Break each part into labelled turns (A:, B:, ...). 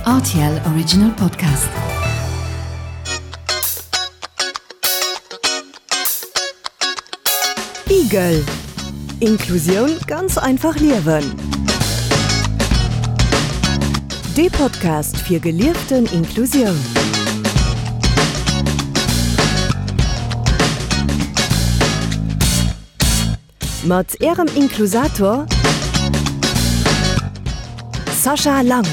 A: RTL Original Podcast. Igel Inklusioun ganz einfach liewen. Dee Podcast fir gelieften Inklusioun. Mat Ärem Inklusator Sascha Lang.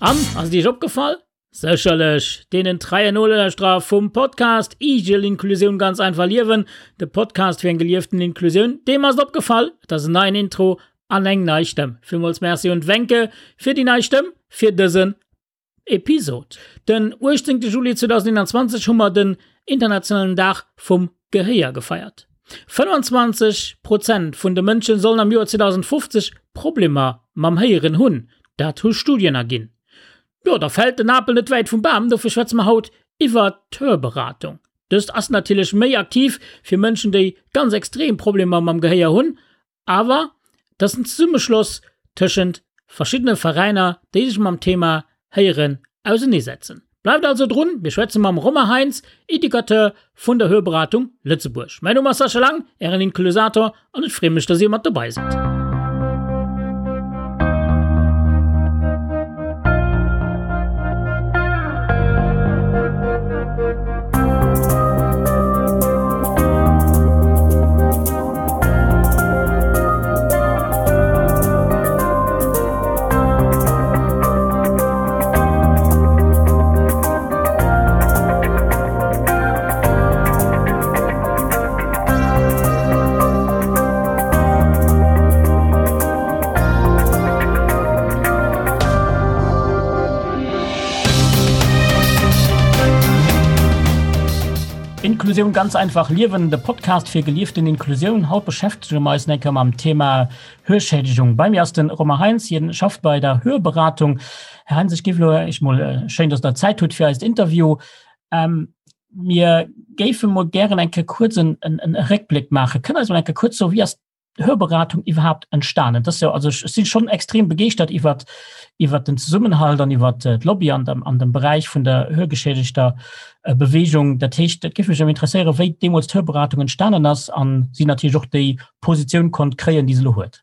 B: An, ass et Iech opgefall? Sécherlech deenen treien Nolauschterer vum Podcast Igel Inklusioun ganz einfach liewen, de Podcast fir eng gelieften Inklusioun, deem ass et opgefall, et ass en neien Intro an eng nei Stëmm. Villmools Merci un d'Wencke fir déi nei Stëmm fir dësen Episod. Den 18. Juli 2021 hu mer den internationalen Dag vum Gehéier gefeiert. 25 Prozent vun de Mënsche sollen am Joer 2050 Problemer mam Héieren hunn, dat hu Studien erginn. Jo, da fält den Apel net wäit vum Bam, dofir schwätze mer haut iwwer d'Hörberatung. Dëst ass natierlech méi aktiv fir Mënschen, déi ganz extrem Problemer mam Gehéier hunn, Awer et ass en Zesummeschloss tëschent verschiddene Veräiner, déi sech mam Thema Héieren auseneesetzen. Bleift also drun, mir schwätze mam Romain Heintz, Educateur vun der Hörberatung Lëtzebuerg. Mäin Numm ass Sascha Lang, Ären Inklusator, an ech freeë mech, dass Dir mat dobei sidd. Inklusioun ganz einfach liewen, de Podcast fir gelieften Inklusioun. Haut beschäftege mer eis eng Kéier mam Thema Hörschädigung. Bei mir ass den Romain Heintz, hien schafft bei der Hörberatung. Här Heintz, ech géif elo eréischt mol, schéin, dass Der Zäit hutt fir eist Interview. Ähm, mir géife mol gären eng Kéier kuerz en, en, en Réckbléck maachen. Kënnt Der eis mol eng Kéier kuerz soen, wéi ass Hörberatung iwwerhaapt entstanen? Das jo, also ech sinn schon extrem begeeschtert iwwer iwwer den Zesummenhalt an iwwer äh, d'Lobby an dem, an dem Beräich vun der hörgeschädigter äh, Bewegung. Dat heescht, dat géif mech interesséieren, wéi deemools d'Hörberatung entstanen ass an si natierlech och déi Positioun konnt kréien, déi se elo huet.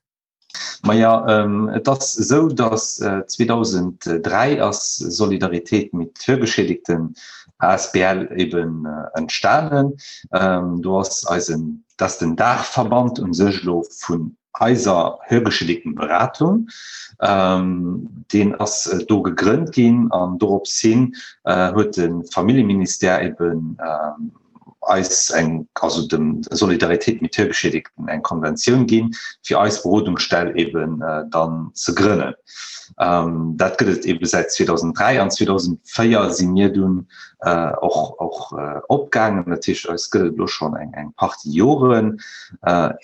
C: Maja, ähm, et ass esou, datt äh, 2003 ass Solidaritéit mit Hörgeschädigten asbl eben äh, entstanen. Ähm, do ass eisen Dat ass den Daachverband un sech elo vun eiser Hörgeschädigtenberatung. Deen ass do gegrënnt ginn an dorops hin huet de Familljeministère eben eis eng, also dem Solidaritéit mit Hörgeschädigten eng Konventioun ginn, fir eis Berodungsstell eben dann ze grënnen. Dat gëtt et ebe säit 2003 an 2004 si mir dunn och och opgaangen. Dat heescht, eis gëtt et elo schonn eng eng Partie Joren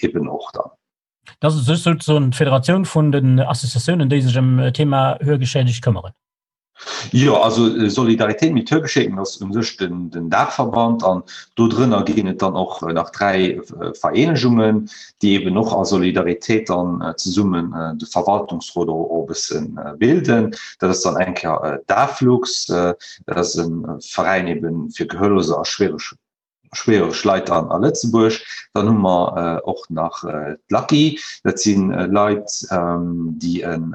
C: eben och dann.
B: Dat ass souzesoen d'Federatioun vun den Associatiounen, déi sech ëm d'Thema Hörgeschädegt këmmeren.
C: Jo, also Solidaritéit mit Hörgeschädigten ass u sech den den Daachverband an do drënner ginn et dann och nach 3 Vereenegungen, déi eben och a Solidaritéit dann zesummen de Verwaltungsrot och e bësse bilden. Dat ass dann eng Kéier d'AFLUX, dat ass e Veräin eben fir Gehörloser a schwiereg schwiereg Leit an a Lëtzebuerg. Dann hu mer och nach d'LACI, dat si Leit, déi en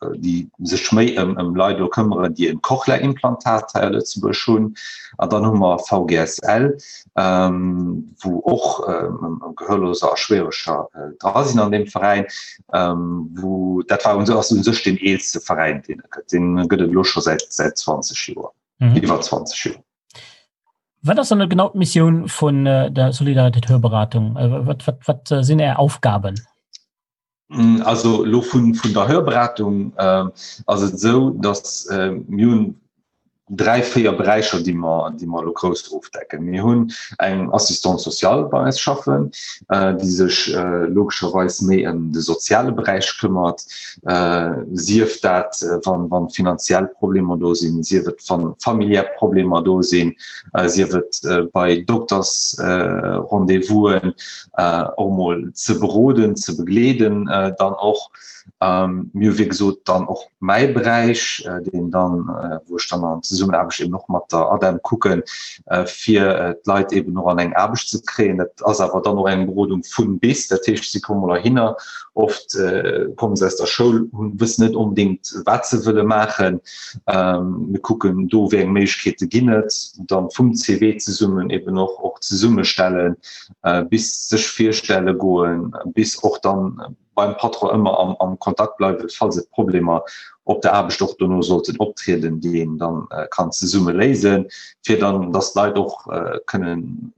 C: déi sech méi ëm ëm Leit elo këmmeren, déi en Cochlea-Implantat hei a Lëtzebuerg hunn. An dann hu mer VGSL, wou och Gehörloser a Schwiereger dra sinn an deem Veräin, wou dat war ass u sech deen eelste Veräin, deen et gëtt. Deen gëtt et elo scho säit säit 20 Joer, iwwer 20 Joer.
B: Wat ass dann genau d'Missioun vun der Solidaritéit Hörberatung? Wat, wat, wat sinn Är Aufgaben?
C: Also elo vun der Hörberatung ass et esou, datt mir hunn 3, 4 Beräicher, déi mer, déi mer elo grouss ofdecken. Mir hunn eng Assistante sociale bei eis schaffen, déi sech logescherweis méi ëm de soziale Beräich këmmert, sief dat wann, wann finanziell Problemer do sinn, sief et wann familiär Problemer do sinn, sief et bei Doktersrendez-vousen. och mol ze beroden, ze begleeden dann och. Mir hu wéi gesot dann och mäi Beräich, deen dann, wou ech dann an Zesummenaarbecht eben och mat der ADEM kucken, fir d'Leit eben och an eng Aarbecht ze kréien. Dat ass awer dann och eng Berodung vun bis, dat heescht, si komme mol heihinner, oft komme se aus der Schoul, hunn, wëssen net onbedéngt, wat se wëlle maachen. Mir kucken do, wéi eng Méiglechkeete ginn et, dann vum CV zesummen eben och och zesummestellen, bis sech virstelle goen, bis och dann beim Patron ëmmer am, am Kontakt bleiwen, falls et Problemer op der Aarbecht och dono sollten optrieden, déi een dann äh, kann zesumme léisen, fir dann, dass d'Leit och äh, kënnen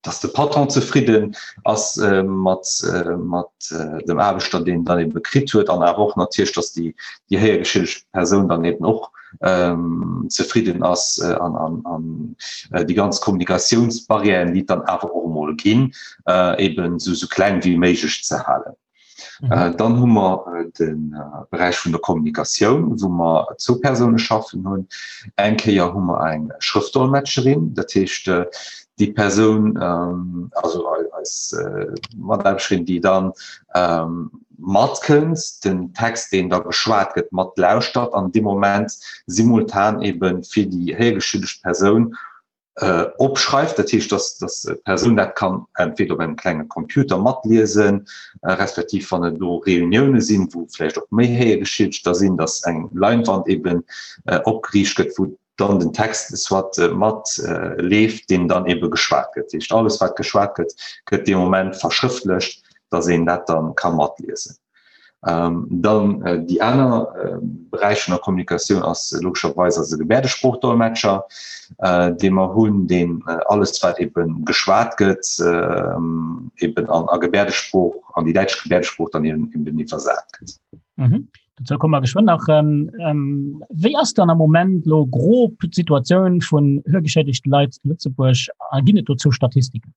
C: dass de Patron zefridden ass äh, mat, äh, mat äh, dem Aarbechter, deen dann eben kritt huet, an awer och natierlech, dass déi, déi héiergeschädigt Persoun dann eben och ähm, zefridden ass äh, an, an, an äh, déi ganz Kommunikatiounsbarrièren, déi dann awer och mol ginn, äh, eben so, so kleng wéi méiglech ze halen. Mhm. Äh, dann hu mer äh, den äh, Beräich vun der Kommunikatioun, wou mer zwou Persoune schaffen hunn. Eng Kéier hu mer eng Schrëftdolmetscherin, dat heescht äh, déi Persoun ähm, also eis äh, Mataarbeschterin, déi dann ähm, matkënnt, den Text, deen da geschwat gëtt, matlauschtert an dee Moment simultan eben fir déi héiergeschüdegt Persoun äh, opschreift. Dat heescht, dass, dass d'Persoun dat kann entweder op engem klenge Computer matliesen, äh, respektiv wann et do Reunioune sinn, wou vläicht och méi Héiergeschiedegter sinn, dass eng Leinwand eben äh, opgeriicht gëtt, wou dann den Text soit mat leeft, deen dann ebe geschwat gëtt. Dat heescht, alles wat geschwat gëtt, gëtt dee Moment verschrëftlecht, datt een dat dann ka matliesen. Dann déi aner Beräich vun der Kommunikatioun ass logescherweis eise Gebäerdesproochdolmetscher, dee mer hunn, deen alles wat ebe geschwat gëtt, eben an a Gebäerdesprooch, an déi däitsch Gebäerdesprooch dann eben iwwersat gëtt.
B: Dozou komme mer geschwënn nach. Wéi ass dann am Moment lo grob d'Situatioun vun hörgeschädigte Leit zu Lëtzebuerg a ginn et dozou Statistiken?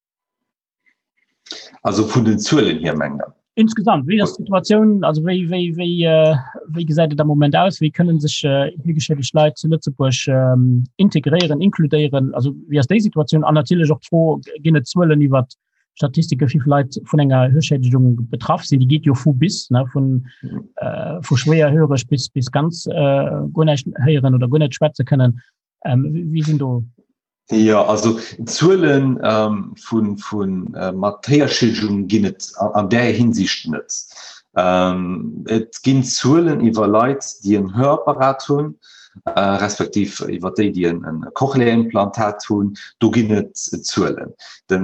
C: Also vun den Zuelen hier mengt Der?
B: Insgesamt, wéi ass d'Situatioun, also wéi, wéi, wéi, wéi gesäit et am Moment aus? Wéi kënnen sech hörgeschädigt Leit zu Lëtzebuerg integréieren, inkludéieren? Also wéi ass déi Situatioun? An natierlech och d'Fro, ginn et Zuelen iwwer Statistike wéi vill Leit vun enger Hörschädigung betraff sinn, déi geet jo vu bis ne vun äh, vu schwéier höreg bis bis ganz äh, guer näischt héieren oder guer net schwätze kënnen. Ähm, wéi sinn do?
C: Jo, also Zuelen ähm, vun vun äh, mat Héierschädigung ginn et an, an där Hinsicht net. Ähm, et ginn Zuelen iwwer Leit, déi en Hörapparat hunn, respektiv iwwer déi, déi en Cochlea-Implantat hunn, do ginn et Zuelen. De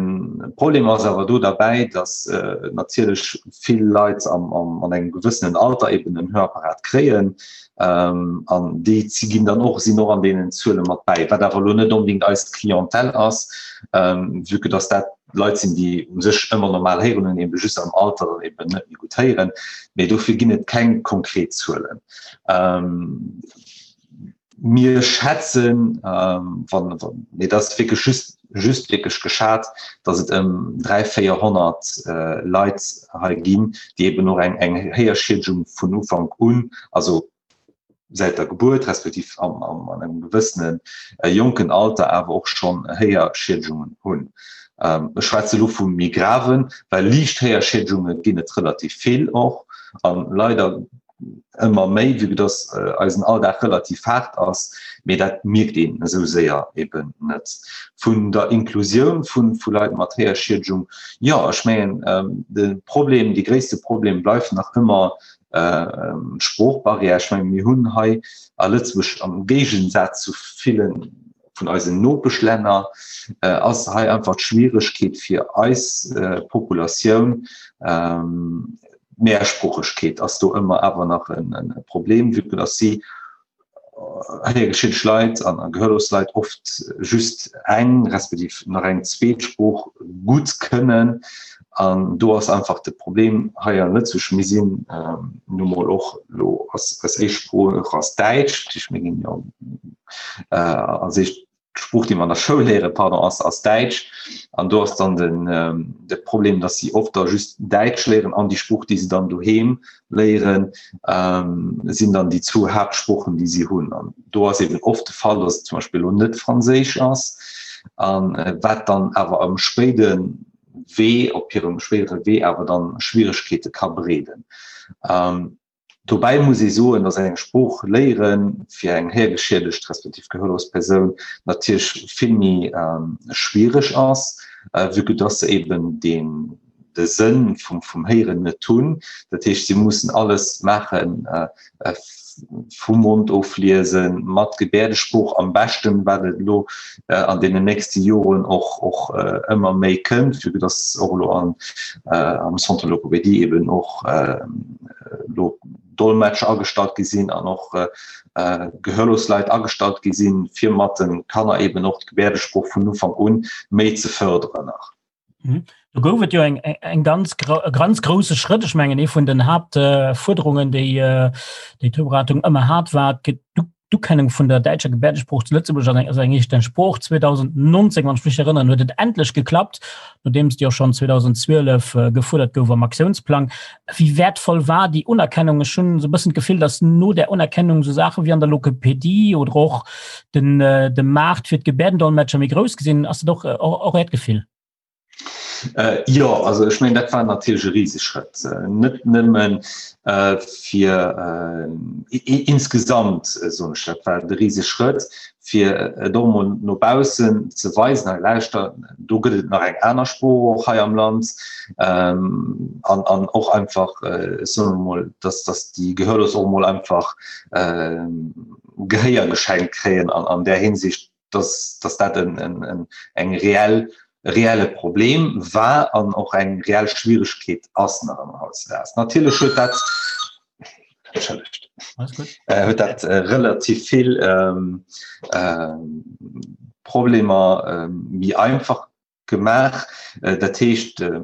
C: Problem ass awer do derbäi, datt natierlech vill Leit an engem gewëssenen Alter eben en Hörapparat kréien an déi ginn dann och, sinn och an deenen Zuele mat bäi, wat awer elo net onbedéngt eis Clientèle ass, vue que datt dat Leit sinn, déi u sech ëmmer normal héieren hunn, ebe just am Alter dann eben net méi gutt héieren. Mee dofir ginn et keng konkret Zuelen. Ähm, mir schätzen, ähm, wann, wann, nee, dat ass wierklech just, just wierklech geschat, datt et ëm 300, 400 äh, Leit hei ginn, déi eben och eng, eng Héierschiedegung vun Ufank un, also säit der Gebuert respektiv am, am, an engem gewëssenen äh, jonken Alter awer och schonn Héierschiedegungen hunn. Ähm, ech schwätze lo vu méi graven, well liicht Héierschiedegungen ginn et relativ vill och an leider ëmmer méi, vue dass äh, eisen Alldag relativ haart ass, mee dat mierkt een esou séier eben net. Vun der Inklusioun vun, vu Leit mat Héierschiedgung, jo, ech mengen ähm, de Problem, de gréisste Problem bleift nach ëmmer Sproochbarrière. Ech menge mir hunn hei a Lëtzebuerg am Géigensaz zu ville vun eisen Nopeschlänner ass hei einfach d'Schwieregkeet fir eis Populatioun, d'Mehrsproochegkeet ass do ëmmer awer nach e Problem, vue que dass si héiergeschiedegt Leit an gehörlos Leit oft just eng respektiv nach eng zweet Sprooch gutt kënnen. An do ass einfach de Problem hei an Lëtzebuerg, mir sinn nu mol och elo ass eis éischt Sprooch ass Däitsch, dat heescht mir ginn jo als éischt d'Sprooch, déi mer an der Schoul léieren, pardon, ass, ass Däitsch. An do ass dann den, de Problem, dass si oft da just Däitsch léieren an déi Sprooch, déi se dann doheem léieren, sinn dann déi zwou Haaptsproochen, déi si hunn. An do ass eben oft de Fall, dass et zum Beispill elo net Franséisch ass, an wat dann awer am spéide Wee, op hirem spéidere Wee awer dann Schwieregkeete ka bereeden. Dobäi muss ee soen, dass eng Sprooch léiere fir eng héiergeschiedegt respektiv gehörlos Persoun natierlech vill méi schwiereg ass, vue que dass se eben deen de Sënn vum vum Héieren net hunn. Dat heescht, si mussen alles maachen, vum Mond ofliesen, mat Gebäerdesprooch am beschten, wat et elo an deenen nächste Joren och och ëmmer méi kënnt, vue que dass och elo an am Centre Logopédie eben och elo Dolmetscher agestallt gi sinn an och gehörlos Leit agestallt gi sinn, fir mat de Kanner eben och d'Gebäerdesprooch vun Ufank un méi ze fërderen nach.
B: Mhm. Do gouf et jo eng, eng ganz, e ganz grousse Schrëtt. Ech mengen ee vun den Haaptfuerderungen, déi äh, déi d'Beratung ëmmer hat, war d'Ukennung vun der däitscher Gebäerdesprooch zu Lëtzebuerg als eng, als eng eegent Sprooch. 2019, wann ech mech erënnern, huet et endlech geklappt, nodeems déi och schonn 2012 äh, gefuerdert gouf am Aktiounsplang. Wéi wäertvoll war déi Unerkennung? Ech hunn esou e bëssen d'Gefill, datt no där Unerkennung esou Saache wéi an der Logopädie oder och den, äh, de Maart fir d'Gebäerdendolmetscher méi grouss gesinn. Ass dat och, äh, och, och Äert Gefill?
C: Äh, jo, also ech mengen, dat war natierlech e Riseschrëtt. Äh, net nëmmen äh, fir äh, insgesamt, äh, soen ech, dat war de Riseschrëtt, fir et och emol no baussen ze weisen, hei lauschter, do gëtt et nach eng aner Sprooch och hei am Land, ähm, an, an och einfach, äh, soen wir mol, dass, dass déi Gehörlos och emol einfach äh, Gehéier geschenkt kréien an, an där Hinsicht, dass, dass dat en, en, en, eng reell, e reelle Problem war an och eng reell Schwieregkeet ass nach ëmmer hautzedaags. Natierlech huet dat, entschëllegt, äh, huet dat äh, relativ vill ähm, äh, Problemer äh, méi einfach gemaach. Äh, dat heescht, äh,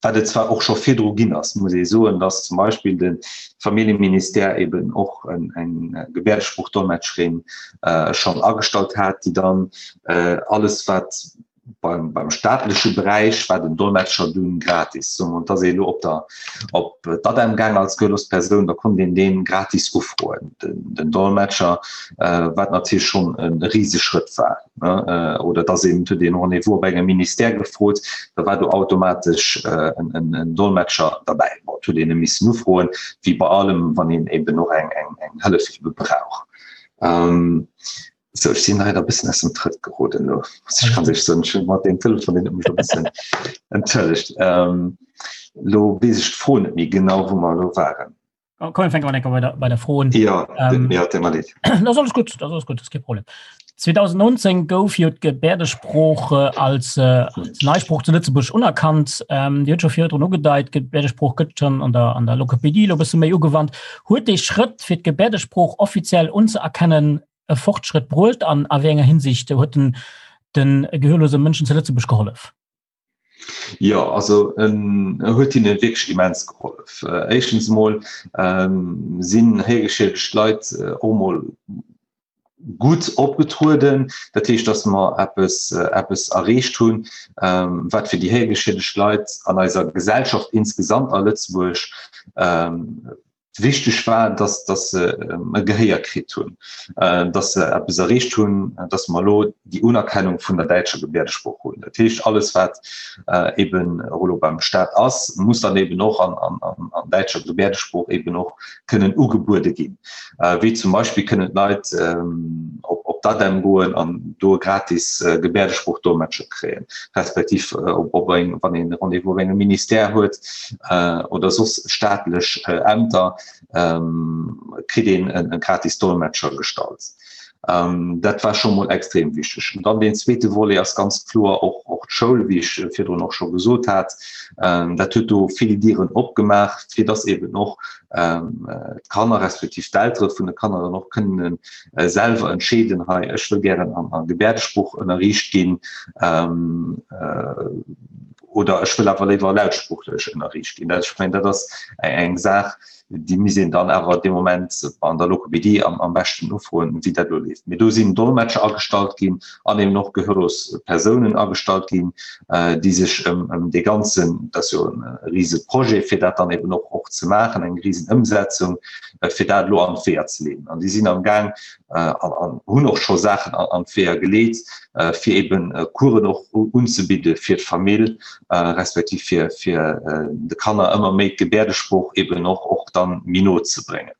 C: wat et zwar och scho virdru ginn ass, muss ee soen, dass zum Beispill de Familljeministère eben och en, eng Gebäerdesprooch-Dolmetscherin äh, schonn agestallt hat, déi dann äh, alles wat beim, beim staatleche Beräich war den Dolmetscher dunn gratis. So, und dass ee lo op der op d'ADEM gaang als gehörlos Persoun, da konnt een deen gratis ufroen, den, den Dolmetscher, äh, wat natierlech schonn e Riseschrëtt war. Ne? Äh, oder dass een huet een Rendez-vous op engem Ministère gefrot, da war do automatesch äh, en, en, en Dolmetscher derbäi. Bon, huet een e missen ufroen, wéi bei allem, wann een eben och eng, eng, eng Hëllef ebe brauch. Ähm, So, ech sinn leider e bëssen aus dem Trëtt geroden elo, muss ech ganz éierlech soen. Ech hunn mat deem Telefon, deen huet mech e bëssen entschëllegt. Ähm, lo weess ech d'Fro net méi genau, wou mer elo waren.
B: Oh, komm, fänke mal bei der, bei der Fro un.
C: Ja, ähm, ja, tut mir leid.
B: Das ist alles gut, das ist alles gut, das ist kein Problem. 2019 gouf jo d'Gebäerdesprooch äh, als, äh, als Neisprooch zu Lëtzebuerg unerkannt. Ähm, Dir huet scho virdrun ugedeit, d'Gebäerdesprooch gëtt schon an der, an der Logopädie lo bësse méi ugewannt. Huet dee Schrëtt fir d'Gebäerdesprooch offiziell unzeerkennen e Fortschrëtt bruecht an a wéi enger Hinsicht huet den den gehörlose Mënschen zu Lëtzebuerg gehollef?
C: Jo, also en huet hinne wierklech immens gehollef. Éischtens emol sinn héigeschiedegt Leit och emol gutt opgetrueden. Dat heescht, datt mer eppes, eppes erreecht hunn, wat fir déi héigeschiedegt Leit an eiser Gesellschaft insgesamt a Lëtzebuerg Wichteg war, dass, dass se e Gehéier kritt hunn, dass se eppes erreecht hunn, dass mer elo déi Unerkennung vun der däitscher Gebäerdesprooch hunn. Dat heescht, alles wat eben och elo beim Stat ass, muss dann eben och an, an, an däitscher Gebäerdesprooch eben och kënnen ugebuede ginn. Wéi zum Beispill kënnen d'Leit op, op d'ADEM goen an do e gratis Gebäerdesprooch-Dolmetscher kréien, respektiv op, op eng, wann een e Rendez-vous op engem Ministère huet, oder soss staatlech Ämter, kritt een e gratis Dolmetscher gestallt. Dat war scho mol extrem wichteg. An dann deen zweete Volet ass ganz kloer och, och d'Schoul, wéi ech virdrun och scho gesot hat. Dat huet do vill Dieren opgemaach, fir dass eben och d'Kanner respektiv d'Eltere vun de Kanner dann och kënnen selwer entscheeden, hei ech wëll gären an a Gebäerdesprooch ënnerriicht ginn oder ech wëll awer léiwer lautsproochlech ënnerriicht ginn. Dat, ech mengen, dat ass eng Saach, déi misst een dann awer dee Moment an der Logopädie am, am beschten ufroen, wéi dat elo leeft. Mee do sinn Dolmetscher agestallt ginn an eben och gehörlos Persounen agestallt ginn, déi sech ëm, ëm dee ganzen, dat ass jo e rise Projet, fir dat dann eben och, och ze maachen, eng risen Ëmsetzung, fir dat elo an d'Weeër ze leeden. An déi sinn am Gaang an, an hunn och scho Saachen an, an d'Weeër geleet, fir eben Coursen och unzebidde fir d'Famill, respektiv fir, fir de Kanner ëmmer méi d'Gebäerdesprooch eben och, och dann méi no ze bréngen.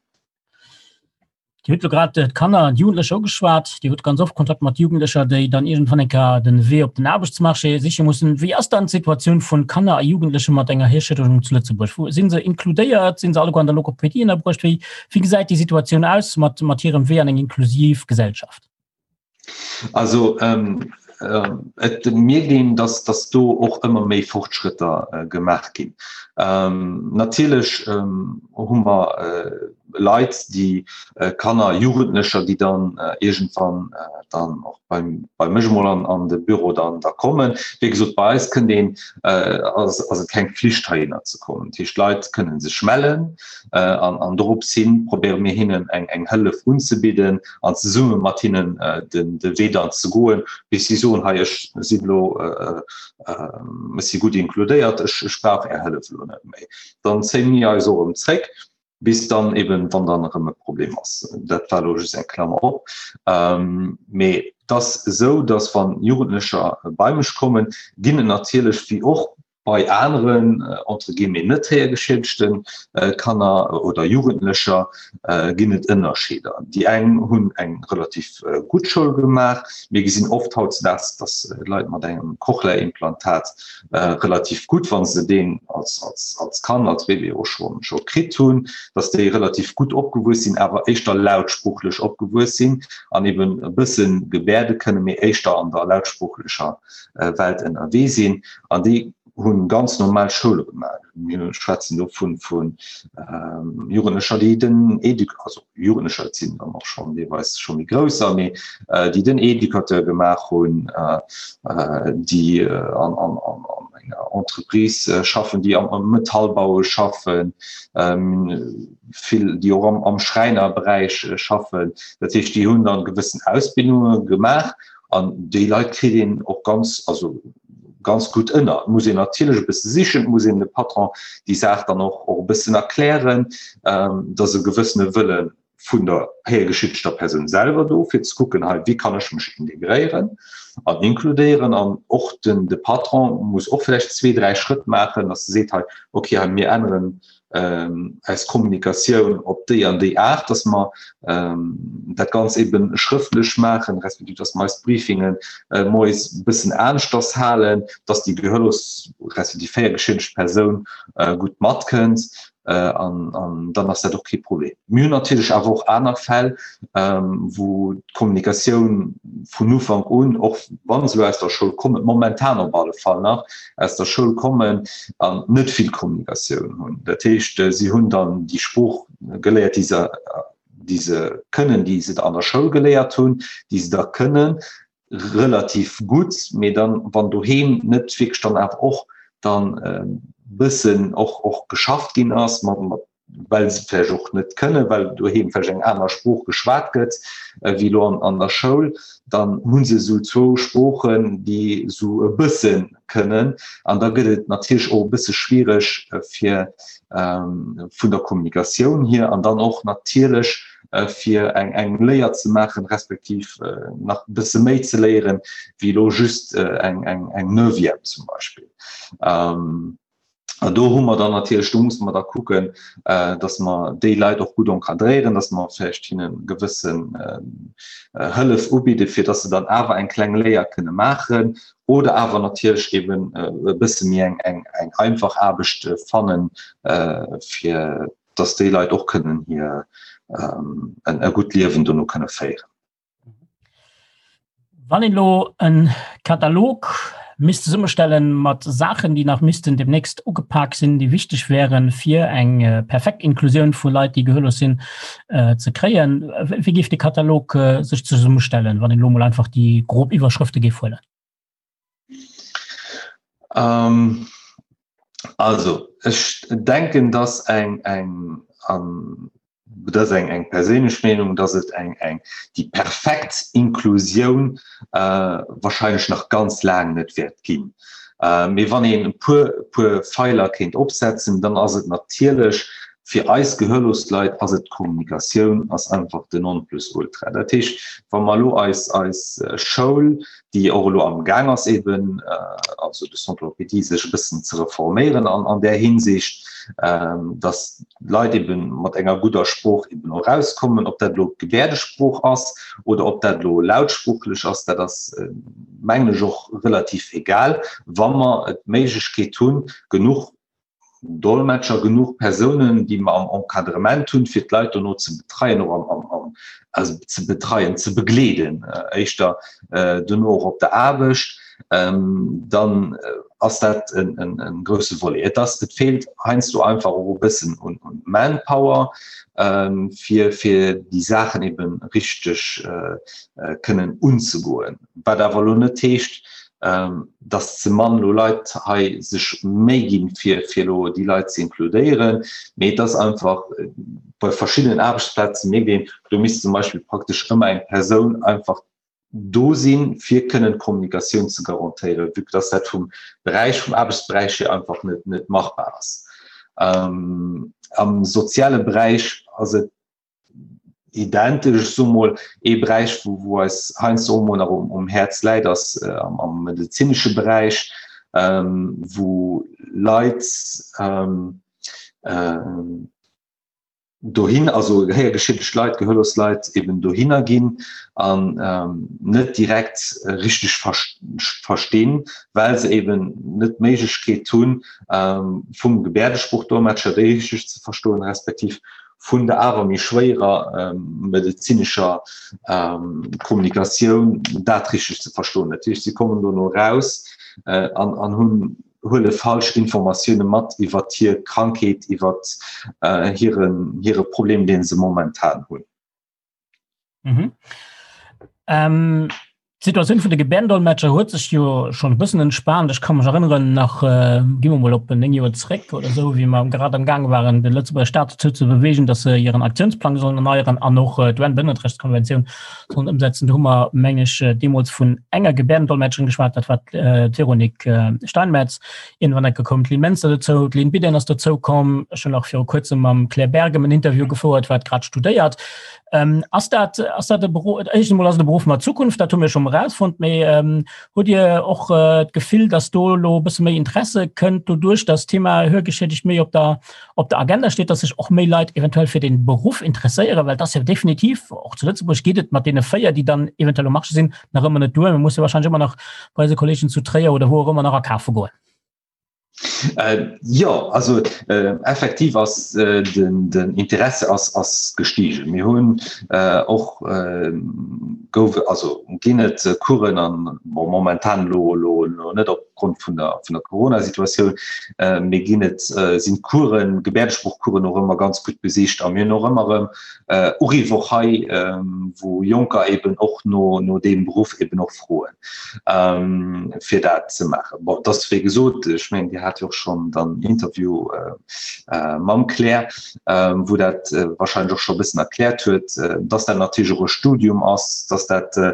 B: Dir hutt elo grad d'Kanner an d'Jugendlecher ugeschwat. Dir hutt ganz oft Kontakt mat Jugendlecher, déi dann iergendwann eng Kéier den Wee op den Aarbechtsmarché siche mussen. Wéi ass dann d'Situatioun vun Kanner a Jugendleche mat enger Hierschëdegung zu Lëtzebuerg? Wou si se inkludéiert? Sinn se alleguer an der Logopädie ënnerbruecht? Wéi wéi gesäit déi Situatioun aus mat mat hirem Wee an eng inklusiv Gesellschaft?
C: Also ähm, ähm, et mierkt een, dass, dass do och ëmmer méi Fortschrëtter äh, gemaach ginn. Ähm, natierlech ähm, hu mer äh, Leit, déi äh, Kanner, Jugendlecher, déi dann äh, iergendwann äh, dann och beim, bei mech mol an, an de Büro dann da kommen. Wéi gesot, bei eis kënnt een, äh, ass, ass et keng Pflicht heihinner ze kommen. Dat heescht, d'Leit kënnen sech mellen äh, an, an dorops hin probéiere mir hinnen eng, eng Hëllef unzebidden, an zesumme mat hinnen den de Wee dann ze goen, bis si soen, hei ech sinn elo, ech si gutt inkludéiert, ech ech brauch Är Hëllef elo net méi. Dann zéie mir eis och erëm zréck, bis dann eben, wann dann erëm e Problem ass. Dat war elo just eng Klammer op. Mee et ass esou, datt wann Jugendlecher bei mech kommen, ginn et natierlech, wéi och Bei aneren, entre guillemets, net héiergeschiedegte Kanner oder Jugendlecher ginn et Ënnerscheeder. Déi eng hunn eng relativ gutt Schoul gemaach. Mir gesinn oft hautzedaags, datt Leit mat engem Cochlea-Implantat relativ gutt, wa se deen als Kand, als Bébé och scho kritt hunn, datt déi relativ gutt opgewuess sinn, awer éischter lautsproochlech opgewuess sinn an eben e bësse gebäerde kënnen, mee éischter an der lautsproochlecher Welt ënnerwee sinn an déi hunn ganz normal Schoule gemaach. Mir schwätzen do vun vun Jugendlecher, déi den Éduc also Jugendlecher, et sinn dann och schonn deelweis scho méi grousser, mee déi den Éducateur gemaach hunn, déi an an an an enger Entreprise schaffen, déi am am Metallbaue schaffen, vill déi och am am Schräinerberäich schaffen. Dat heescht, déi hunn dann gewëssen Ausbildunge gemaach An déi Leit kritt een och ganz, also ganz gutt ënner. Et muss een natierlech e bësse sichen, et muss een de Patron déi Saach dann och och e bëssen erklären, dass e gewëssene Wëlle vun der héiergeschiddegter Persoun selwer do, fir ze kucken, hei wéi kann ech mech integréieren an inkludéieren. An och den de Patron muss och vläicht zwee, dräi Schrëtt maachen, dass e seet, hei okay, hei mir änneren eis Kommunikatioun op déi an déi Aart, dass mer dat Ganz eben schrëftlech maachen, respektiv dass mer eis Briefingen moies e bëssen aneschters halen, dass déi gehörlos respektiv héiergeschiedegt Persoun gutt matkënnt an dann ass dat och kee Problem. Mir hunn natierlech awer och aner Fäll, wou d'Kommunikatioun vun Ufank un, och wa se elo aus der Schoul kommen, momentan op alle Fall nach aus der Schoul kommen an net vill Kommunikatioun hunn. Dat heescht, si hunn dann déi Sprooch geléiert, déi se, déi se kënnen, déi se an der Schoul geléiert hunn, déi se da kënnen relativ gutt, mee dann, wann doheem net wierklech dann awer och dann e bëssen och, och geschafft ginn ass mat, mat well se vläicht och net kënnen, well doheem vläicht eng aner Sprooch geschwat gëtt wéi elo an, an der Schoul, dann hu se esou zwou Sproochen, déi esou e bësse kënnen. An da gëtt et natierlech och e bësse schwiereg fir vun der Kommunikatioun hier an dann och natierlech fir eng, eng Léier ze maachen, respektiv nach e bësse méi ze léieren, wéi elo just eng, eng, eng Neuvième zum Beispill. An do hu mer dann natierlech, do musse mer da kucken, dass mer déi Leit och gutt encadréieren, dass mer vläicht hinne gewëssen Hëllef ubidden, fir dass se dann awer eng kleng Léier kënne maachen oder awer natierlech eben e bësse méi eng, eng, eng einfach Aarbecht fannen, fir dass déi Leit och kënnen hir e gutt Liewen dono kënne féieren.
B: Wann een elo e Katalog misst zesummestellen mat Saachen, déi nach missten demnächst ugepak sinn, déi wichteg wären, fir eng perfekt Inklusioun vu Leit, déi gehörlos sinn, ze kréien, wéi géif de Katalog sech zesummestellen, wann een elo mol einfach déi grob Iwwerschrëfte géif huelen?
C: Also, ech denken, dass eng, eng, an dat ass eng, eng perséinlech Meenung, dass et eng, eng, déi perfekt Inklusioun wahrscheinlech nach ganz laang net wäert ginn. Mee wann een e puer, puer Feiler kéint opsetzen, dann ass et natierlech, Fir eis gehörlos Leit ass et d'Kommunikatioun ass einfach den Nonplusultra. Dat heescht, wa mer elo eis eis Schoul, déi och elo am Gaang ass eben, also de Centre d'Orthopédie, sech e bëssen ze reforméieren an an där Hinsicht, datt d'Leit eben mat enger gudder Sprooch eben och erauskommen, ob dat elo d'Gebäerdesprooch ass oder ob dat elo lautsproochlech ass, dat ass mengen ech och relativ egal, wa mer d'Méiglechkeet hunn, genuch Dolmetscher, genuch Persounen, déi mer am Encadrement hunn, fir d'Leit dono ze betreien, och am, am, am, also ze betreien, ze begleeden, éischter dono och op der Aarbecht, dann ass dat en, en, en grousse Volet. Et ass, et feelt heiansdo einfach och e bëssen un, un Manpower, fir, fir déi Saachen eben richteg kënnen unzegoen. Wat awer elo net heescht, dass ze mann elo Leit hei sech Méi ginn, fir fir elo déi Leit ze inkludéieren, mee et ass einfach bei verschiddenen Aarbechtsplaze mierkt een, do misst zum Beispill praktesch ëmmer eng Persoun einfach do sinn, fir kënnen d'Kommunikatioun ze garantéieren, vue que dass dat vum Beräich, vum Aarbechtsberäich hier einfach net net machbar ass. Am soziale Beräich ass et identesch, ech soe mol, ee Beräich, wou, wou eis heiansdo och mol nach um, um Häerz läit, ass äh, am, am medezinesche Beräich, ähm, wou Leit ähm, äh, dohin, also gehéiergeschiedegt Leit, gehörlos Leit eben dohinner ginn an ähm, net direkt äh, richtig verstinn, well se eben net d'Méiglechkeet hunn, ähm, vum Gebärdesprochdolmetscher déi richtig ze verstoen, respektiv vun der awer méi schwéierer medezinescher Kommunikatioun dat richteg ze verstoen. Dat heescht, si kommen dono eraus an an hunn huele falsch Informatioune mat iwwer hir Krankheet, iwwer hiren hire Problem, dee se momentan hunn.
B: Mhm. Ähm, D'Situatioun vun de Gebäerdendolmetscher huet sech jo schonn e bëssen entspaant. Ech ka mech erënneren, nach, gi mer mol op 9 Joer zréck oder esou, wéi mer grad am Gaang waren, de Lëtzebuerger Staat dozou ze beweegen, datt se hiren Aktiounsplang sollen erneieren an och d'UN-Bëndertrechtskonventioun sollen ëmsetzen. Do hu mer, meng ech, deemools vun enger Gebäerdendolmetscherin geschwat, dat war d'Véronique Steinmetz. Iergendwann enke koum d'Lynn Menster dozou, d'Lynn Bidden ass dozoukomm. Ech hunn och viru Kuerzem mam Claire Bergem en Interview gefouert, wat grad studéiert. Ähm, ass dat, ass dat e Beruff, éischt emol ass et e Beruff mat Zukunft, dat hu mir schon erausfonnt, mee ähm, hutt Dir och äh, d'Gefill, dass do lo e bësse méi Interesse kënnt doduerch, dass d'Thema Hörgeschädigt méi op der, op der Agenda steet, dass sech och méi Leit eventuell fir den Beruff interesséieren, well dat ass jo definitiv, och zu Lëtzebuerg geet et mat deene 4, déi dann eventuell um Marché sinn, nach ëmmer net duer. Mir musse wahrscheinlech ëmmer nach bei eise Kollegen zu Tréier oder wou och ëmmer nach akafe goen.
C: Äh, jo, also äh, effektiv ass äh, den, den Interesse ass, ass gestiegen. Mir hunn äh, och äh, gouf, also ginn et äh, Coursen an bon, momentan lo, lo, lo net opgrond vun der, vun der Corona-Situatioun, äh, mee ginn et äh, sinn Coursen, Gebärdesproochcoursen och ëmmer ganz gutt besicht a mir hunn och ëmmer erëm äh, Uriff och hei, äh, wou Jonker eben och no, no deem Beruff eben och froen. ähm, fir dat ze maachen. Bon, dat ass wéi gesot, ech mengen, Dir hat jo och schonn dann Interview äh, äh, mam Claire, äh, wou dat äh, wahrscheinlech och scho e bëssen erkläert huet, äh, dass dat natierlech och e Studium ass, dass dat äh,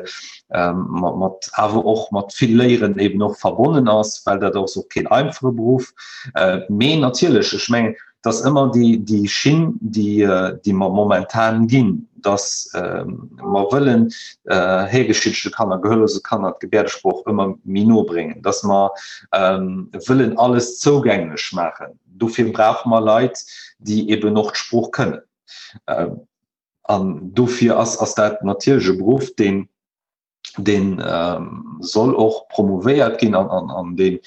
C: ähm, mat, mat awer och mat vill Léieren eben och verbonnen ass, well dat ass och keen einfache Beruff. Äh, mee natierlech, ech mengen, Et ass ëmmer déi, déi Schinn, déi, déi mer momentan ginn, dass mer wëllen héigeschiedegte Kanner, gehörlose Kanner d'Gebäerdesprooch ëmmer méi no bréngen, dass mer wëllen alles zougänglech maachen. Dofir brauche mer Leit, déi eben och d'Sprooch kënnen. An dofir ass, ass dat natierlech e Beruff, deen, deen soll och promouvéiert ginn an, an, an deen,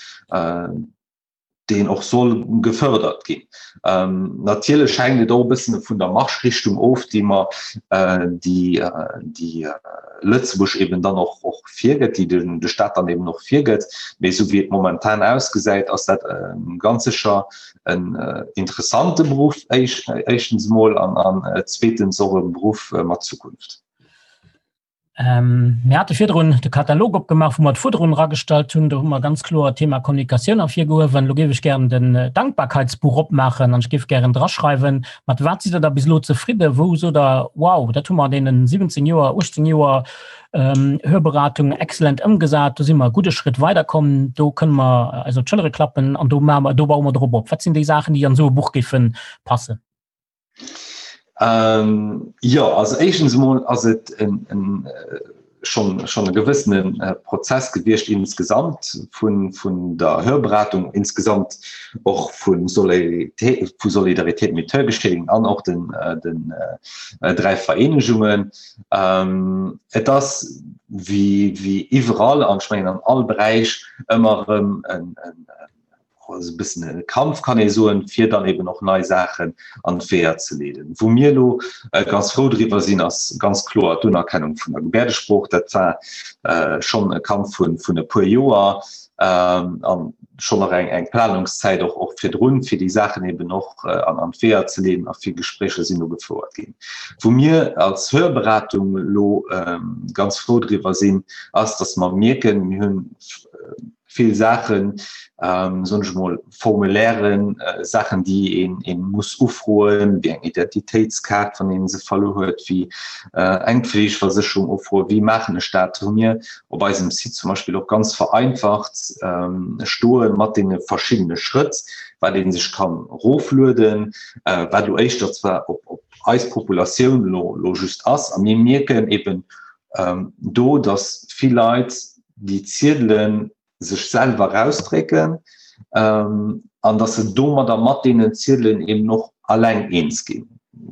C: deen och soll gefördert ginn. Ähm, natierlech hänkt et och e bëssen vun der Marschrichtung of, déi mer äh, déi, äh, déi äh, Lëtzebuerg eben dann och, och virgëtt, déi den, de Staat dann eben och virgëtt. Mee esou wéi et momentan ausgesäit, ass dat äh, ganz sécher en äh, interessante Beruff éisch, éischtens emol an, an äh, zweetens och e Beruff äh, mat Zukunft.
B: Ähm, mir hate virdrun de Katalog opgemaach, wou mer d'Fuerderungen eragestallt hunn. Do hu mer ganz kloer d'Thema Kommunikatioun ervirgehuewen. Elo géif ech gären den äh, Dankbarkeitsbuch opmaachen an ech géif gären draschreiwen, mat wat sidd Der da bis elo zefridden? Wou sot Der, wow, dat hu mer an deenen 17 Joer, 18 Joer ähm, Hörberatung exzellent ëmgesat, do si mer e gudde Schritt weiderkomm, do kënne mer eis op d'Schëllere klappen an do maache mer, do baue mer drop op. Wat sinn déi Saachen, déi an esou e Buch géife passen?
C: Ähm, jo, also éischtens emol ass et en, en, schon, schon e gewëssene äh, Prozess gewiescht insgesamt vun, vun der Hörberatung, insgesamt och vun Solidaritéit, vu Solidaritéit mit Hörgeschädigten an och den, äh, den äh, dräi Vereenegungen. Ähm, et ass wie, wie iwwerall an ech mengen an all Beräich ëmmer erëm en, en, also e bëssen e Kampf kann ee soen, fir dann eben och nei Saachen an d'Weeër ze leeden. Wou mir elo ganz frou driwwer sinn, ass ganz kloer d'Unerkennung vun der Gebäerdesprooch. Dat war schonn e Kampf vun e puer Joer an schonn nach eng eng Planungszäit och och virdrun, fir déi Saachen eben och an an d'Weeër ze leeden a vill Gespréicher sinn do gefouert ginn. Wou mir als Hörberatung elo ganz frou driwwer sinn, ass, datt mer mierken, mir hunn vill Saachen, soen ech emol, Formulairen, Saachen, déi een een muss ufroen, wéi eng Identitéitskaart, wann een se verluer huet, wéi eng Pflegeversécherung ufroen, wéi maachen ech dat, hu mir op eisem Site zum Beispill och ganz vereinfacht stoe mat deene verschiddene Schrëtt, wat ee sech kann eroflueden, wat elo éischter zwar op op eis Populatioun elo elo just ass. A mir mierken eben do, datt vill Leit déi Ziedele sech selwer erausdrécken an datt se domadder mat deenen Ziedelen eben och alleng eens ginn.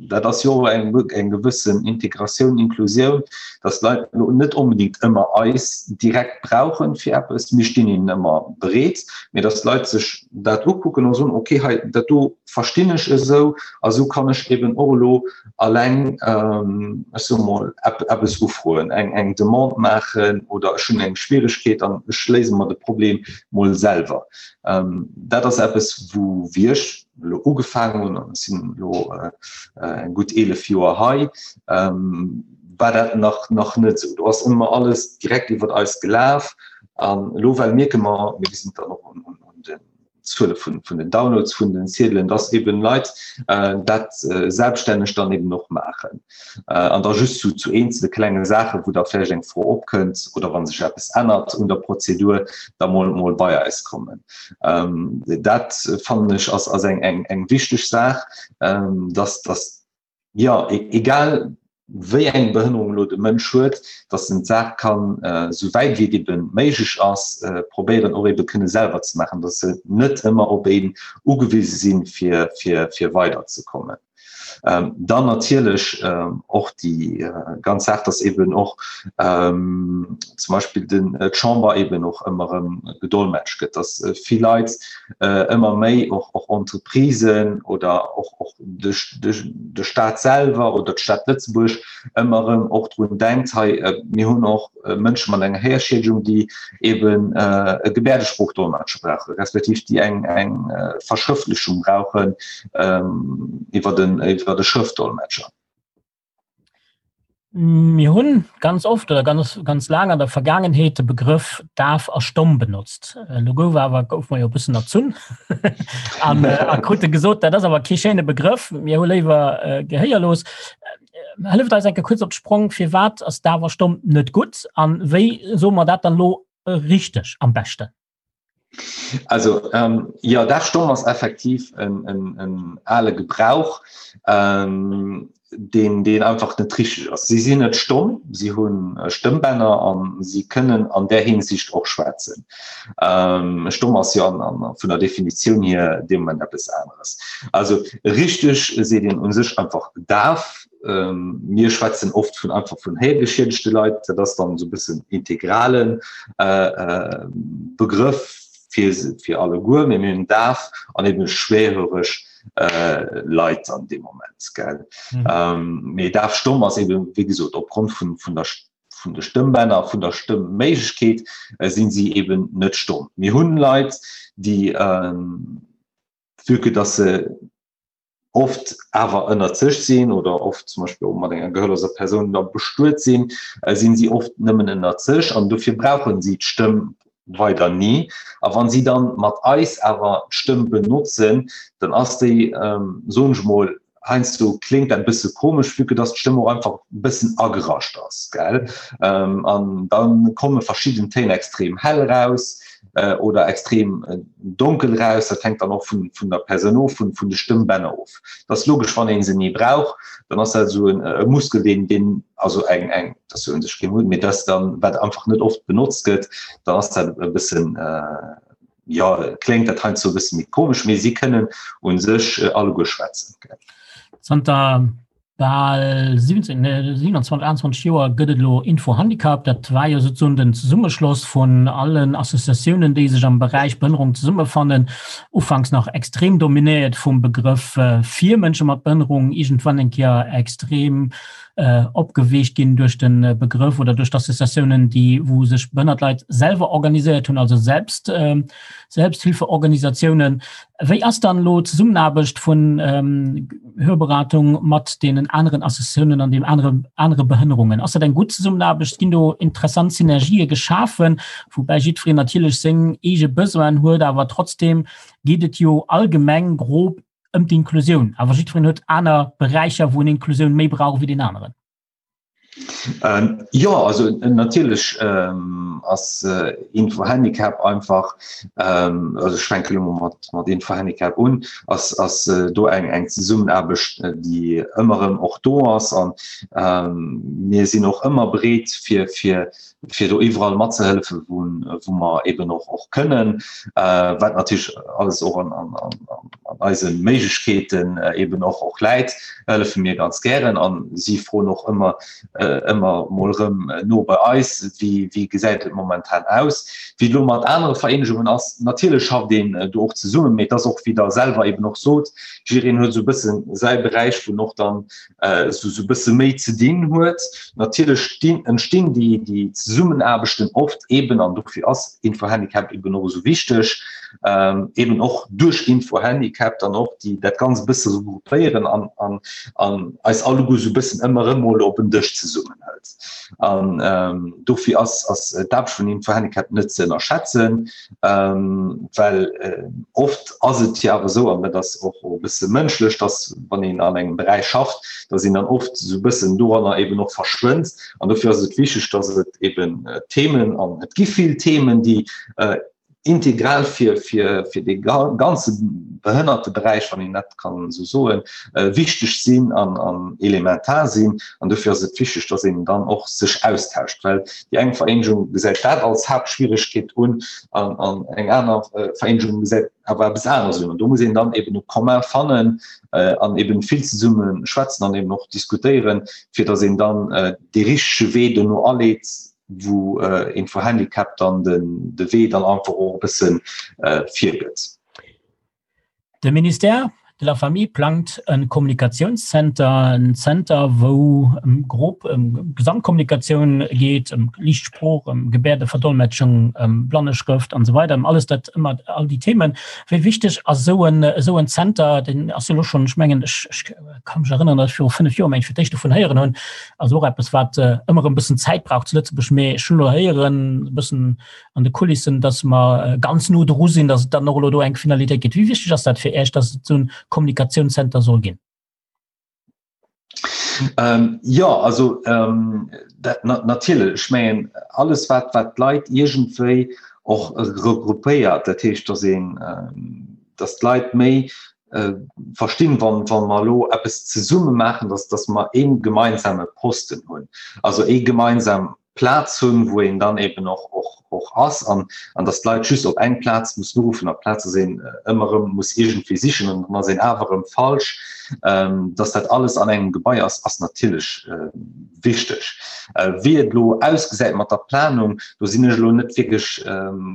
C: Dat ass jo och eng, eng gewëssen Integratioun, Inklusioun, datt d'Leit elo net onbedéngt ëmmer eis direkt brauchen fir eppes, mir stinn hinnen ëmmer bereet, mee datt d'Leit sech dat ukucken a soen, okay, hei dat do verstinn ech esou a sou kann ech eben och elo alleng ech soe mol eppes ufroen, eng eng Demande maachen oder ech hunn eng Schwieregkeet an ech léise mer de Problem mol selwer. Dat ass eppes wou wéi ech elo ugefaangen hunn, an ech sinn elo eng gutt 11 Joer hei, war dat nach nach net esou. Do ass ëmmer alles direkt iwwert eis gelaf an elo well mierke mer, mir gesinn et dann och un den Zuele vun, vun den Downloads vun den Ziedelen, dass eben Leit äh, dat äh, selbststänneg dann eben och maachen. Äh, an da just zu, zu eenzele klenge Saachen, wou da vläicht eng Fro opkënnt oder wann sech eppes ännert un der Prozedur, da mol, mol bei eis kommen. Ähm, dat fannen ech ass, ass eng, eng, eng wichteg Saach, ähm, dass, dass jo, egal wéi eng Behënnerung elo de Mënsch huet, datt en d'Saach kann, esou wäit wéi et ebe méiglech ass, probéieren och ebe kënne selwer ze maachen, datt se net ëmmer op een ugewise sinn, fir, fir, fir weiderzekommen. Dann natierlech och déi ganz Saach, datt eben och zum Beispill den, d'Chamber eben och ëmmer erëm gedolmetscht gëtt, datt vill Leit ëmmer méi och, och Entreprisen oder och, och de, de, de Staat selwer oder d'Stad Lëtzebuerg ëmmer erëm och drun denkt, hei mir hunn och Mënsche mat enger Héierschiedegung, déi eben e Gebäerdesproochdolmetscher brauchen, respektiv déi eng, eng Verschrëftlechung brauchen iwwer den, iwwer de Schrëftdolmetscher.
B: Mir hunn ganz oft oder ganz, ganz laang an der Vergaangenheet de Begrëff daf a stomm benotzt. Elo gouf awer gouf mer jo e bëssen erzunn an a krute gesot, dat ass awer kee schéine Begrëff, mir hu léiwer gehéierlos. Hëlleft eis eng Kéier kuerz op d'Sprong, firwat ass daf a stomm net gutt an wéi soe mer dat dann elo richteg am beschten?
C: Also ähm, ja daf stomm ass effektiv en, en, en ale Gebrauch, ähm, deen, deen einfach net richteg ass. Si sinn net stomm, si hunn äh, Stëmmbänner an si kënnen an där Hinsicht och schwätzen. Ähm, stomm ass jo an, an, vun der Definitioun hier dee Moment eppes aneres. Also richteg seet een un sech einfach daf. Mir schwätzen oft vun einfach vun héiergeschiedegte Leit, dat ass dann esou e bëssen integralen Begrëff fir fir alleguer, mee mir hunn daf an eben schwerhöreg Leit an deem Moment, gell. Mee daf stomm ass eben, wéi gesot, opgrond vun vun der vun de Stëmmbänner, vun der Stëmmméiglechkeet sinn si eben net stomm. Mir hunn Leit, déi, vue que dass se oft awer ënnert sech sinn oder oft zum Beispill och mat enger gehörloser Persoun da bestuet sinn, äh, sinn si oft nëmmen ënnert sech an dofir brauchen si d'Stëmm weider ni. A wann si dann mat eis awer d'Stëmm benotzen, dann ass déi, ähm, soen ech mol, heiansdo kléngt dat e bësse komesch, vue que dass d'Stëmm och einfach e bëssen agerascht ass, gell? Ähm, an dann komme verschidden Téin extrem hell raus. oder extrem donkel eraus. Dat hänkt dann och vun, vun der Persoun of, vun, vun de Stëmmbänner of. Dat ass logesch, wann ee se ni brauch, dann ass dat esou e Muskel, deen, deen also eng, eng, dat ass jo un sech kee Muskel, mee dat ass dann, wat einfach net oft benotzt gëtt, dann ass dat e bëssen, jo, kléngt dat heiansdo e bësse méi komesch, mee si kënnen u sech alleguer schwätzen.
B: Zanter bal 17, nee, 27, 28 Joer gëtt et elo Info-Handicap. Dat war jo sozusagen den Zesummeschloss vun allen Associatiounen, déi sech am Beräich Behënnerung zesummefannen. Ufanks nach extrem dominéiert vum Begrëff fir Mënsche mat Behënnerung, iergendwann eng Kéier extrem opgeweecht ginn duerch de Begrëff oder duerch d'Associatiounen, déi wou sech behënnert Leit selwer organiséiert hunn, also selbst Selbsthilfeorganisatiounen. Wéi ass dann elo d'Zesummenaarbecht vun Hörberatung mat deenen aneren Associatiounen an deem anere anere Behënnerungen? Ass dat eng gutt Zesummenaarbecht? Ginn do interessant Synergië geschafen, woubäi jiddwereen natierlech seng eege Besoinen huet, awer trotzdeem geet et jo allgemeng grob ëm d'Inklusioun, awer jiddwereen huet aner Beräicher, wou en Inklusioun méi brauch wéi deen aneren.
C: Ähm, jo, also natierlech ähm, ass äh, Info-Handicap einfach, ähm, also ech fänke lo mol mat, mat Info-Handicap un, ass, ass äh, do eng, eng Zesummenaarbecht, äh, déi ëmmer erëm och do ass an ähm, mir sinn och ëmmer bereet fir, fir fir do iwwerall matzehëllefen, wou, wou mer eben och, och kënnen, äh, wat natierlech alles och an, an, an, an eise Méiglechkeeten äh, eben och, och läit, hëllefe mir ganz gären an si froen och ëmmer, äh, ëmmer mol erëm no bei eis, wéi, wéi gesäit et momentan aus. Wéi et elo mat anere Vereenegungen ass, natierlech schafft een do och zesummen, mee et ass och, wéi Der selwer eben och sot, jiddereen huet esou e bësse säi Beräich, wou en och dann esou e bësse méi ze dinn huet. Natierlech stinn, entstinn déi, déi Zesummenaarbechten oft eben, an dofir ass Infohandicap eben och esou wichteg, eben och duerch Infohandicap dann och déi, dat Ganzt e bësse regroupéieren an, an, an eis alleguer esou e bëssen ëmmer erëm mol op en Dësch zesummenhëlt. An dofir ass, ass d'Aarbecht vun Infohandicap net ze ënnerschätzen. Ähm, well äh, oft ass et jo awer esou, an dat ass och e bësse mënschlech, dass wann een an engem Beräich schafft, dass een dann oft esou e bëssen doranner eben och verschwënnt. An dofir ass et wichteg, dass et eben äh, Themen, an et gi vill Themen, déi äh, integral fir, fir, fir de ganze Behënnerteberäich, wann een dat kann esou soen, äh, wichteg sinn an, an elementar sinn. An dofir ass et wichteg, dass een dann och sech austauscht, well déi eng Vereenegung gesäit dat als Haaptschwieregkeet un an, an eng aner äh, Vereenegung gesäit awer eppes aneres un. An do muss een dann eben e Commun fannen äh, an eben vill zesumme schwätzen an eben och diskutéieren, fir dass een dann äh, dee richtege Wee dono aleet, wou äh, Info-Handicap dann den, de Wee dann einfach och e bëssen äh, virgëtt.
B: De Ministère de la Famille plangt e Kommunikatiounszenter, en Zenter, wou ëm grob ëm Gesamtkommunikatioun geet, ëm Liicht Sprooch, ëm Gebäerdeverdolmetschung, ëm Blanneschrëft an esou weider, ëm alles dat, ëmmer all déi Themen. Wéi wichteg ass esou en, esou en Zenter? Deen ass jo elo schonn, ech mengen, ech, ech ka mech erënneren, datt ech viru 5 Joer, meng ech, fir d'éischt dovun héieren hunn. Also och eppes, wat ëmmer erëm e bëssen Zäit brauch zu Lëtzebuerg, mee ech hunn elo héieren, e bëssen an de Kulissen, dass mer ganz no dru sinn, dass et dann och elo do eng Finalitéit gëtt. Wéi wichteg ass dat fir Iech, dass et esou en Kommunikatiounscenter soll ginn?
C: Ähm, jo, also ähm, dat, na, natierlech, ech mengen, alles wat, wat d'Leit iergendwéi och regroupéiert, dat heescht, dass een, ähm, dass d'Leit méi äh, verstinn, wann, wann mer elo eppes zesumme maachen, dass, dass mer ee gemeinsame Posten hunn, also ee gemeinsam Plaz hunn, wou een dann eben och, och, och ass an, an dass d'Leit just op eng Plaz mussen uruffen, amplaz dass een ëmmer erëm muss iergendwéi sichen an dann ass een awer erëm falsch. Dass dat alles an engem Gebai ass, ass natierlech wichteg. Wéi et elo ausgesäit mat der Planung, do sinn ech elo net wierklech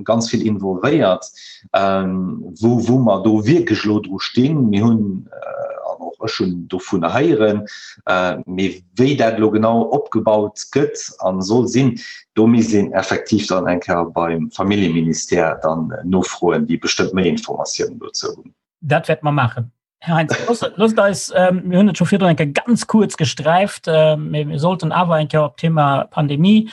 C: ganz vill involvéiert, wou, wou mer do wierklech elo dru stinn. Mir hunn, an och ech hunn dovunner héieren, mee Wéi dat elo genau opgebaut gëtt a soll sinn, do misst een effektiv dann eng Kéier beim Familljeministère dann nofroen, déi bestëmmt méi Informatiounen dozou hunn.
B: Dat wäerte mer maachen. Här Heintz, loosst eis, mir hunn et scho virdrun eng Kéier ganz kuerz gesträift, mee mir sollten awer eng Kéier op d'Thema Pandemie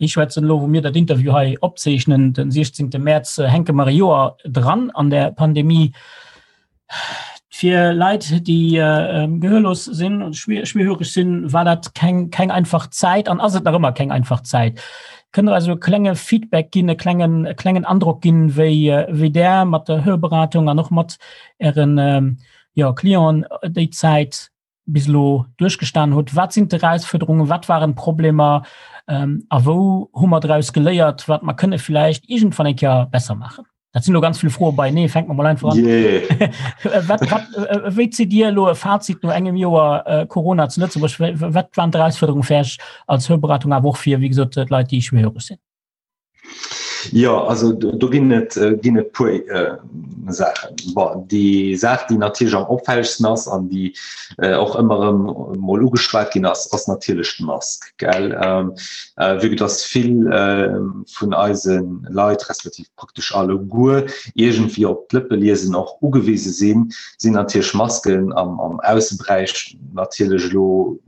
B: schwätzen. Elo wou mir dat Interview hei opzeechnen, den 16. Mäerz, hänke mer e Joer dran an där Pandemie. Fir Leit, déi gehörlos sinn, schwierhöreg sinn, war dat keng, keng einfach Zäit an ass et nach ëmmer keng einfach Zäit. Kënnt Der eis e klenge Feedback ginn, e klengen, e klengen Androck ginn, wéi, wéi Der mat der Hörberatung an och mat Ären, jo, Clienten déi Zäit bis elo duerchgestan hutt? Wat sinn d'Erausfuerderungen, wat waren d'Problemer a wou hu mer draus geléiert, wat mer kënne vläicht iergendwann eng Kéier besser maachen? Dat sinn elo ganz vill Froe beienee, fänke mer mol einfach an.
C: Yeah.
B: Wat, wat, wéi zitt Dir elo e Fazit no engem Joer Corona zu Lëtzebuerg? Wat waren d'Erausfuerderungen fir Iech als Hörberatung, awer och fir, wéi gesot, d'Leit, déi schwierhöreg sinn?
C: Jo, also do ginn et ginn et puer Saachen. Bon, déi Saach, déi natierlech am opfällegsten ass an déi och ëmmer erëm mol ugeschwat ginn ass, ass natierlech d'Mask, gell. Vue que dass vill vun eise Leit, respektiv praktesch alleguer, iergendwéi op d'Lëppeliesen och ugewise sinn, sinn natierlech Masken am am Ausseberäich natierlech elo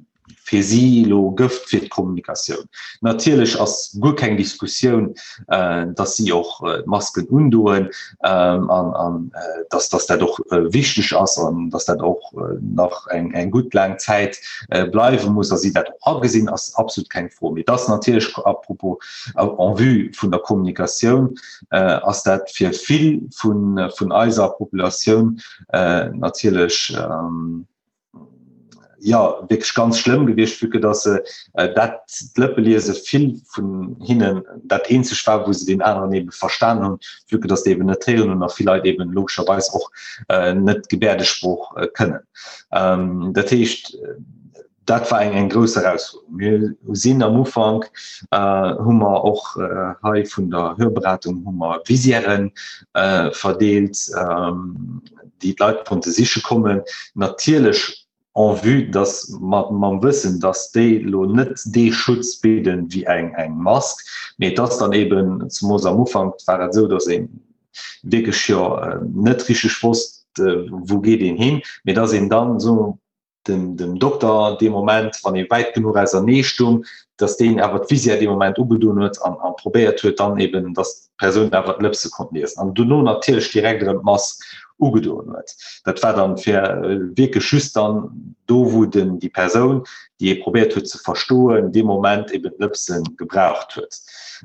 C: fir si elo Gëft fir d'Kommunikatioun. Natierlech ass guer keng Diskussioun, datt si och d'Masken undoen an datt datt dat och wichteg ass an datt dat och nach eng eng gutt laang Zäit bleiwe muss a si dat och agesinn, ass absolut keng Fro. Mee et ass natierlech à propos, en vue vun der Kommunikatioun ass dat fir vill vun vun eiser Populatioun natierlech, ja wierklech ganz schlëmm gewiescht, vue que dass se äh, dat d'Lëppeliese vill vun hinnen dat eenzeg war, wou se den aneren eben verstan hunn, vue que dass déi eben net héieren hunn a vill Leit eben logescherweis och äh, net Gebäerdesprooch äh, kënnen. Ähm, dat heescht, dat war eng eng grouss Erausfuerderung. Mir sinn am Ufank äh, hu mer och äh, hei vun der Hörberatung hu mer Visièren äh, verdeelt, ähm, déi d'Leit konnte siche kommen, natierlech en vue dass mat mam Wëssen, dass déi elo net dee Schutz bidden wéi eng eng Mask, mee et ass dann eben, zemoos am Ufank war et esou, dass ee wierklech jo net richteg wosst, wou geet een hin, mee dass een dann esou dem, dem Dokter dee Moment, wann ee wäit genuch ausernee stung, dass deen awer d'Visière dee Moment ugedoen huet an, an probéiert huet dann eben, dass d'Persoun awer d'Lëpse konnt liesen. An dono natierlech direkt erëm d'Mask ugedoen huet. Dat war dann fir äh, wierklech just dann do, wou den, déi Persoun, déi ee probéiert huet ze verstoen, dee Moment eben d'Lëpse gebraucht huet.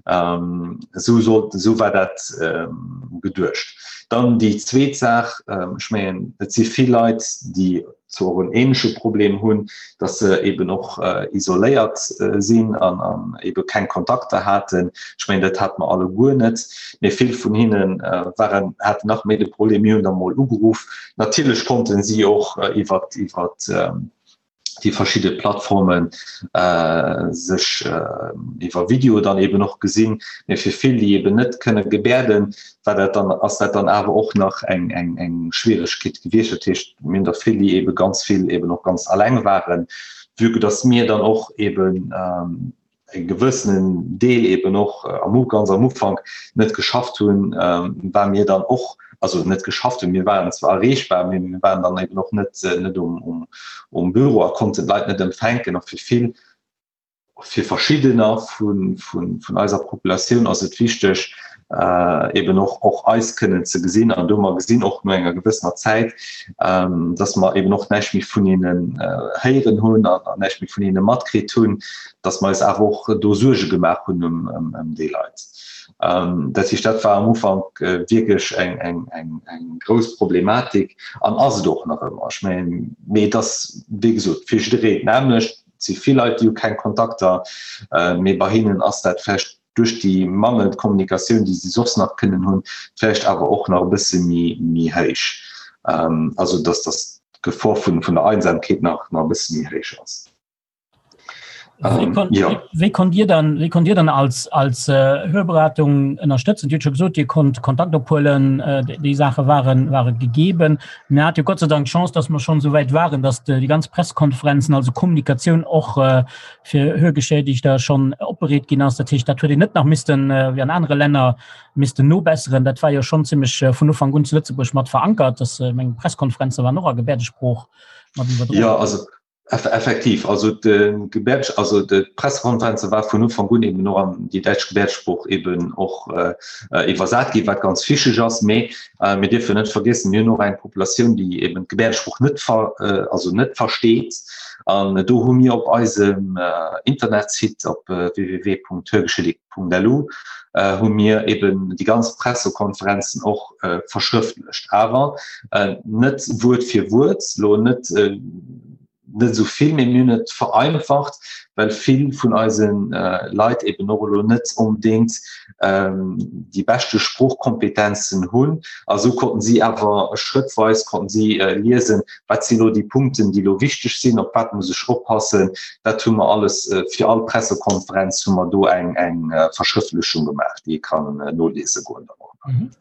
C: Ähm, esou sollt, esou war dat ähm, geduecht. Dann déi zweet Saach, ähm, ech mengen, et si vill Leit, déi zwar och en ähnleche Problem hunn, dass se eben och isoléiert sinn an an ebe keng Kontakter haten. Ech mengen, dat hate mer alleguer net, mee vill vun hinne waren, haten nach méi de Problem. Mir hunn da mol ugeruff. Natierlech konnte si och iwwer iwwer déi verschidde Plattforme sech iwwer Video dann eben och gesinn. Mee fir vill, déi eben net kënne gebäerden, war dat dann, ass dat dann awer och nach eng, eng, eng Schwieregkeet gewiescht. Dat heescht, mir hunn der vill, déi ebe ganz vill eben och ganz alleng waren, vue que dass mir dann och eben e gewëssenen Deel eben och am U ganz am Ufank net geschafft hunn, war mir dann och, also net geschafft hunn, mir waren zwar erreechbar, mee mir waren dann eben och net, net um, um, um Büro a konnten d'Leit net empfänken. A fir vill Fir verschiddener vun eiser Populatioun ass et wichteg, eben och och eis kënnen ze gesinn. An do mer gesinn och no enger gewëssener Zäit, dass mer eben och näischt méi vun hinnen héieren hunn an näischt méi vun hinne matkritt hunn, dass mer eis awer och do Suerge gemaach hunn ëm déi Leit. Dat heescht, dat war am Ufank wierklech eng grouss Problematik an ass et och nach ëmmer. Ech mengen, mee et ass, wéi gesot, fir jiddereen d'nämmlecht. Et si vill Leit, déi hu keng Kontakter, mee bei hinnen ass dat vläicht duerch déi mangelnd Kommunikatioun, déi si soss nach kënnen hunn, vläicht awer och nach e bësse méi héich. Also datt datt d'Gefor vun der Einsamkeet nach e bësse méi héich ass.
B: Wéi konnt Dir dann, wéi konnt Dir dann als, als Hörberatung ënnerstëtzen? Dir hutt scho gesot, Dir konnt Kontakt ophuelen, déi Saache waren, ware gegeben. Mir hate jo Gott sei Dank d'Chance, dass mer schonn esou wäit waren, dass déi ganz Pressekonferenzen, also Kommunikatioun och fir Hörgeschädigter schonn opbereet ginn ass. Dat heescht, dat huet een net nach missten, wéi an anere Länner, missten nobesseren. Dat war jo schonn zimmlech vun Ufank un zu Lëtzebuerg mat verankert, dass, ech mengen, d'Pressekonferenze waren och a Gebäerdesprooch mat iwwerdroen.
C: Jo, also. Effektiv, also de Gebärd, also de Pressekonferenze war vun Ufank un eben och an déi däitsch Gebäerdesprooch eben och iwwersat ginn, wat ganz wichteg ass. Mee mir dierfen net vergiessen, mir hunn och eng Populatioun, déi eben d'Gebäerdesprooch net ver, also net versteet. An do hu mir op eisem Internetsite op www.hörgeschädigt.lu hu mir eben déi ganz Pressekonferenzen och verschrëftlecht, awer net Wuert fir Wuert, lo net net esou vill, mee mir hunn et vereinfacht, well vill vun eise Leit eben och elo net onbedéngt déi beschte Sproochkompetenzen hunn. A sou konnten si awer schrëttweis konnten si liesen, wat sinn elo déi Punkten, déi elo wichteg sinn, op wat muss ech oppassen. Dat hu mer alles fir all Pressekonferenz hu mer do eng eng Verschrëftlechung gemaach, déi ee kann noliese goen dann och.
B: Mhm.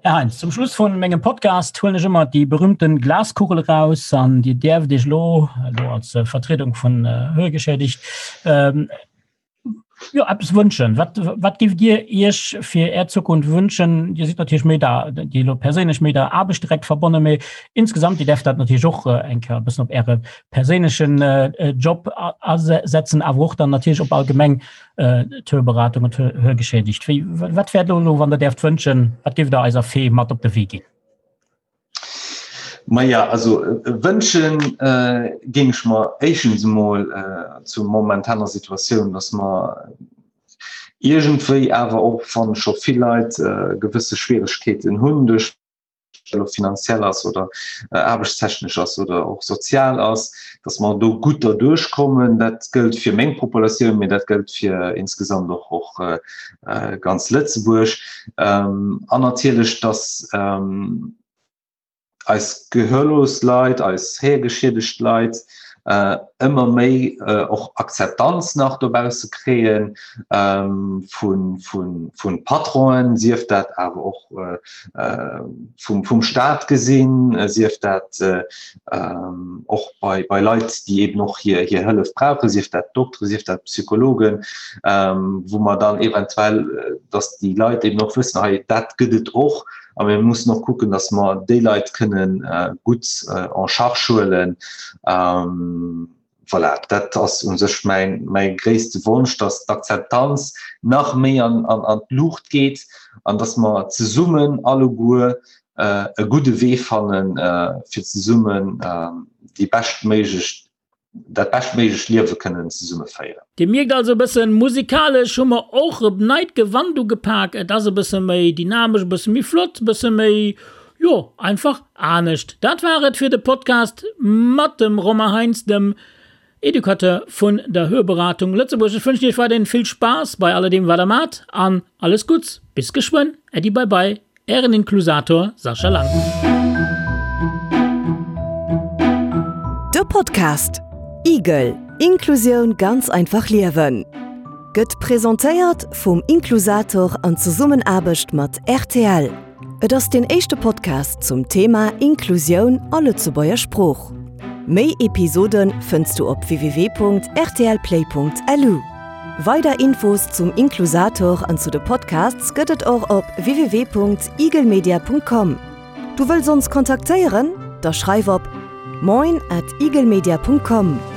B: Här Heinz, zum Schluss vun mengem Podcast huelen ech ëmmer déi berühmten Glaskugel eraus an Dir däerft Iech elo, elo als äh, Vertriedung vun äh, Hörgeschädigt, ähm, jo, eppes wënschen. Wat, wat gift Dir Iech fir Är Zukunft wënschen? Dir sidd natierlech méi der, déi elo perséinlech méi der Aarbecht direkt verbonnen, mee insgesamt, Dir däerft dat natierlech och äh, eng Kéier e bëssen op Äre perséinlechen äh, Job asetzen, awer och dann natierlech op allgemeng D'Hörberatung und Hörgeschädigt. Wéi, wat wär do elo, wann Der däerft wënschen, wat géift Der eiser Fee mat op de Wee ginn?
C: Maja, also wënschen géing ech mer éischtens emol zur momentaner Situatioun, datt mer iergendwéi awer och, wann scho vill Leit gewësse Schwieregkeeten hunn duerch elo finanziell ass oder aarbechtstechnesch ass oder och sozial ass, dass mer do gutt derduerch kommen. Dat gëllt fir meng Populatioun, mee dat gëllt fir insgesamt och och ganz Lëtzebuerg. An natierlech, dass eis gehörlos Leit, eis héiergeschiedegt Leit ëmmer méi och Akzeptanz nach dobausse kréien vu Patronen, sief dat awer och vum Staat gesinn, sief dat och bei Leit, déi eben och hir Hëllef brauchen, sief dat Dokteren, sief dat Psychologen, wou mer dann eventuell, datt déi Leit eben och wëssen, hei dat gëtt et och a mir mussen och kucken, datt mer déi Leit kënnen gutt en charge huelen. Voilà, dat ass u sech mäin, mäi gréisste Wonsch, datt d'Akzeptanz nach méi an, an, an d'Luucht geet an datt mer zesummen alleguer e gudde Wee fannen, fir zesummen déi beschtméiglech, dat beschtméiglecht Liewe kënnen zesumme féieren.
B: Dir mierkt also e bëssen, musikalesch hu mer och e neit Gewand ugepak. Et ass e bësse méi dynamesch, e bësse méi flott, e bësse méi, jo, einfach anescht. Dat war et fir de Podcast mat dem Romain Heinz, dem Educateur vun der Hörberatung Lëtzebuerg. Ech wënschen iech weiderhin vill Spaass bei alledeem wat der maacht an alles Gutts. Bis geschwënn. Äddi bye bye. Ären Inklusator Sascha Lang.
A: De Podcast Igel, Inklusioun ganz einfach liewen gëtt presentéiert vum Inklusator an Zesummenaarbecht mat rtl. Et ass deen éischte Podcast zum Thema Inklusioun a Lëtzebuerger Sprooch. Méi Episode fënns du op www.rtlplay.lu. Weider Infos zum Inklusator an zu de Podcasts gëtt et och op www.igelmedia.com. Du wëlls ons kontaktéieren? Da schreif op moin at igelmedia.com.